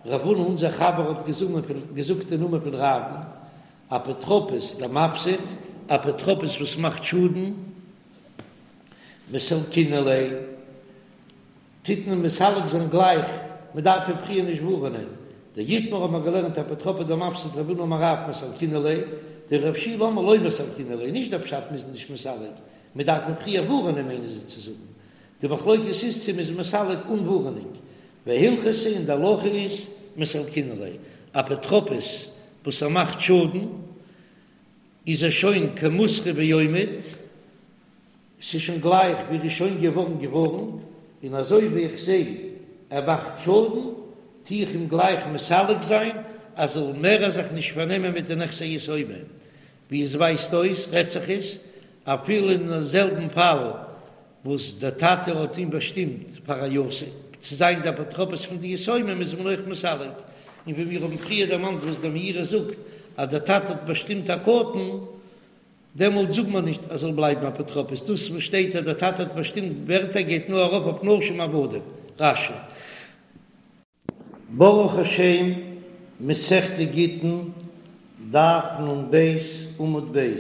רב הונא אונזער חבר האט געזאגט אין נאמען פון רב'ן, אפוטרופוס דמפסיד, אפוטרופוס וואס מאכט שאדן, מסלקינן ליה, טוט מען מסלק זיין גלייך, מען דארף אים פריער נישט ווארענען, דאיתמר האט מען געלערנט אפוטרופא דמפסיד רב הונא אמר רב מסלקינן ליה, דרב שילא אמר לא מסלקינן ליה, נישט דער פשט מ'איז נישט מסלק, מען דארף אים פריער ווארענען מיינען זיי צו זאגן, די מחלוקת איז צו מ'איז מסלק אן ווארענונג, והלכתא און די הלכה איז מסלקינן ליה, אפוטרופוס וואס ער מאכט שאדן איז ער שוין כמותרה ועומד, ס'איז שוין גלייך ווי ער איז שוין געווארן געווארנט, און אזוי ווי איך זע ער מאכט שאדן, טו איך אים גלייך מסלק זיין אז זאל מער זיך נישט פארנעמען מיט די נכסי יתומים. ווי עס ווייזט אויס רעדט זיך עס אפילו אין זעלבן פאל וואס דער טאטע האט אים באשטימט פאר א יתום צו זיין דער אפוטרופוס פון די יתומים איז מען אויך מסלק, און ווי מיר האבן פריער דערמאנט וואס דער מאירי זאגט אז דער טאטע האט באשטימט א קטן, דעמאלט זאגט מען נישט אז זאל בלייבן אפוטרופוס, דאס וואס שטייט אז דער טאטע האט באשטימט ווערטער גייט נאר ארויף אויף נשים עבדים. רש"י. ברוך השם, מסכת גיטין, דף נ"ב עמוד ב',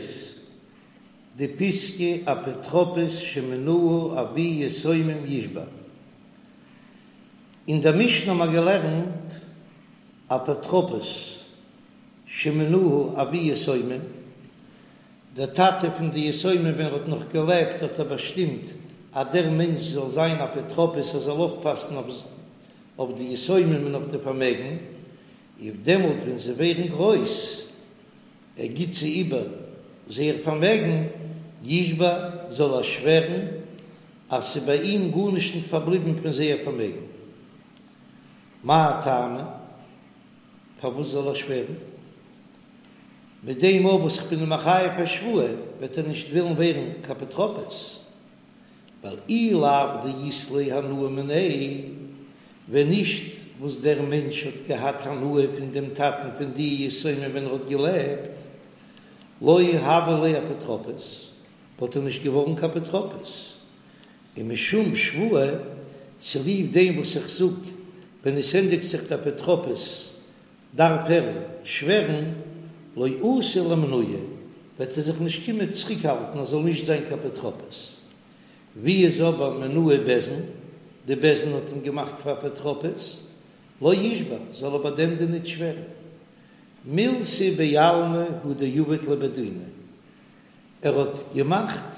די פיסקא אפוטרופוס שמינהו אבי יתומים ישבע. אין דער משנה האבן מיר געלערנט אפוטרופוס שמינהו אבי יתומים, דער טאטע פון די יתומים ווען ער האט נאך געלעבט האט ער באשטימט אז דער מענטש זאל זיין אפוטרופוס ער זאל אויפפאסן אויף די יתומים און אויף די פארמעגן, און דעמאלט ווען זיי ווערן גרויס ער גיט זיי איבער זייער פארמעגן, ישבע זאל ער שווערן אז ס'איז ביי אים גארנישט נישט פארבליבן פון זייער פארמעגן. מאי טעמא? פארוואס זאל ער שווערן? מיט דעם אויך וואס איך בין אים מחייב א שבועה וועט ער נישט ווילן ווערן קיין אפוטרופוס, ווייל אי לאו דאית ליה הנאה מיניה, ווען נישט וואס דער מענטש האט געהאט הנאה פון דעם טאטן פון די יתומים ווען ער האט געלעבט, לא הוה ליה אפוטרופוס, וואלט ער נישט געווארן קיין אפוטרופוס. און משום שבועה, צוליב דעם וואס איך זאג, ווען עס ענדיגט זיך די אפוטרופוס דארף ער שווערן, לא אתי לאימנועי, וועט ער זיך נישט קומען צוריקהאלטן ער זאל נישט זיין קיין אפוטרופוס. ווי איז אבער מינוהו בית דין, די בית דין האט אים געמאכט פאר אפוטרופוס, לא ישבע, זאל ער ביי דעם דין ניט שווערן. מילתא בעלמא הוא דעבד ליה בי דינא, ער האט געמאכט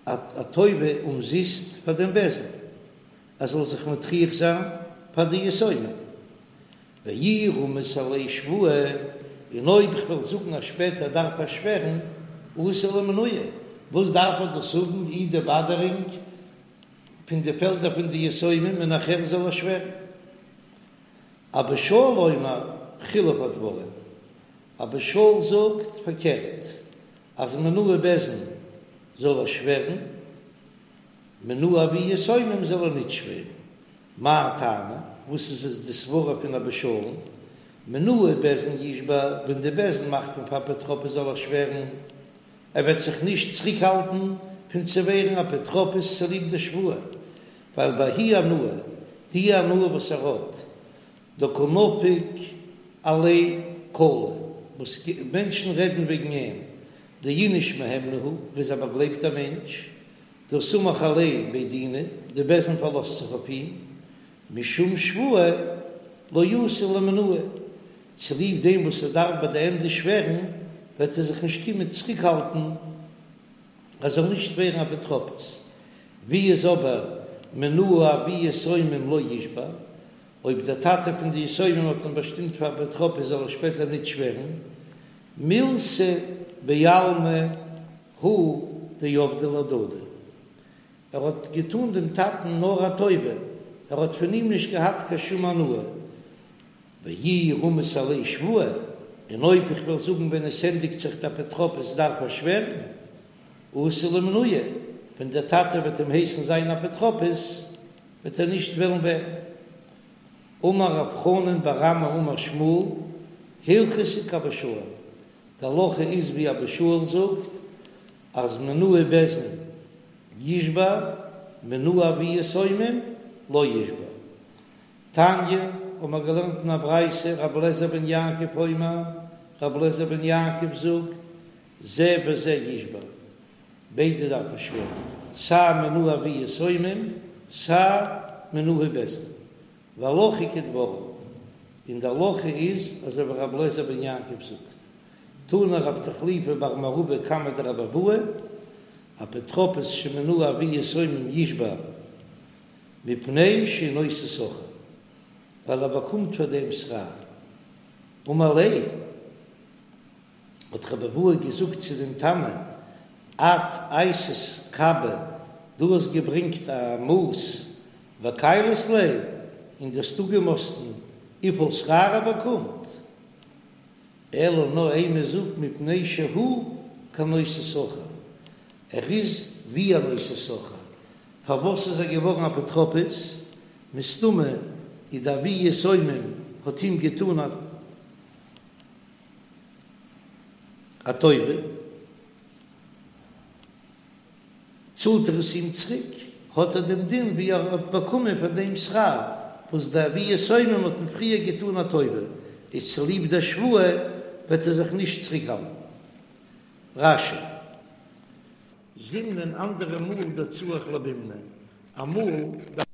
א טובה אומזיסט פאר דעם בית דין, ער זאל זיך מטריח זיין פאר די יתומים. ואי רמית עליה שבועה, און אויב איך וועל זאגן אז שפעטער דארף ער שווערן, אתי לאימנועי, וואס דארף ער דאס האבן אי די באדערונג פון די פעלדער פון די יתומים און נאכער זאל ער שווערן? אבא שאול אומר חילוף הדברים, אבא שאול זאגט פארקערט, אז מינוהו בית דין זאל ער שווערן, מינוהו אבי יתומים זאל ער ניט שווערן. מאי טעמא? וואס איז די סברה פון אבא שאול'ן? מינוהו בית דין ישבע, ווען די בית דין מאכט אים פאר אפוטרופוס זאל ער שווערן, ער וועט זיך נישט צוריקהאלטן פון צו ווערן אפוטרופוס צוליב די שבועה, ווייל בההיא הנאה, די הנאה וואס ער האט, דקא נפיק עליה קלא, וואס מענטשן רעדן וועגן אים, דאיניש מהימנא הוא, ער איז א באגלייבטער מענטש, דהא סמיך עליה בי דינא, די בית דין פארלאזט זיך אויף אים, משום שבועה לא אתי לאימנועי, צוליב דעם וואס ער דארף ביי די ענדע שווערן, וועט ער זיך נישט קומען צוריקהאלטן ער זאל נישט ווערן אפוטרופוס. ווי איז אבער מינוהו אבי יתומים לא ישבע, אויב דער טאטע פון די יתומים האט אים באשטימט פאר אפוטרופוס זאל ער שפעטער ניט שווערן, מילתא בעלמא הוא דעבדיה להדדי, ער האט געטאן דעם טאטן נאר א טובה, ער האט פון אים נישט געהאט קיין שום הנאה. ואי רמית עליה שבועה, און אויב איך וועל זאגן ווען עס ענדיגט זיך די אפוטרופוס דארף ער שווערן, אתי לאימנועי, ווען דער טאטע וועט אים הייסן זיין אפוטרופוס וועט ער נישט וועלן ווערן. אמר רב חנן בר אמי אמר שמואל, הלכתא כאבא שאול, די הלכה איז ווי אבא שאול זאגט אז מינוהו בית דין ישבע מינוהו אבי יתומים לא ישבע. תניא, האבן מיר געלערנט אין א ברייתא, רבי אליעזר בן יעקב אומר, רבי אליעזר בן יעקב זאגט, זה וזה ישבע, ביידע דארפן שווערן, סיי מינוהו אבי יתומים סיי מינוהו בית דין, והלכה כדבריו, און די הלכה איז אזוי ווי רבי אליעזר בן יעקב זאגט, תנא רב תחליפא בר מערבא קמיה דרבי אבהו, אפוטרופוס שמינוהו אבי יתומים ישבע מפני שהוא נושא שכר, ווייל ער באקומט פאר דעם שכר. אמר ליה, האט רבי אבהו געזאגט צו דעם תנא, את אייתית קבא, דו האסט געברענגט א מאס וכיילת ליה, און דו האסט אפגעמאסטן וויפיל שכר ער באקומט, אלא נאר אימא זאג מפני שהוא כנושא שכר, ער איז ווי א נושא שכר, פארוואס איז ער געווארן אפוטרופוס? מסתמא איז די אבי יתומים האט אים געטאן א טובה, צאלט ער עס אים צוריק, האט ער דעם דין ווי ער האט באקומען פאר דעם שכר וואס די אבי יתומים האט אים פריער געטאן א טובה, איז צוליב דער שבועה וועט ער זיך נישט צוריקהאלטן. רש"י. זימנין אנדערע מאל דצריך למימנא, אמאל.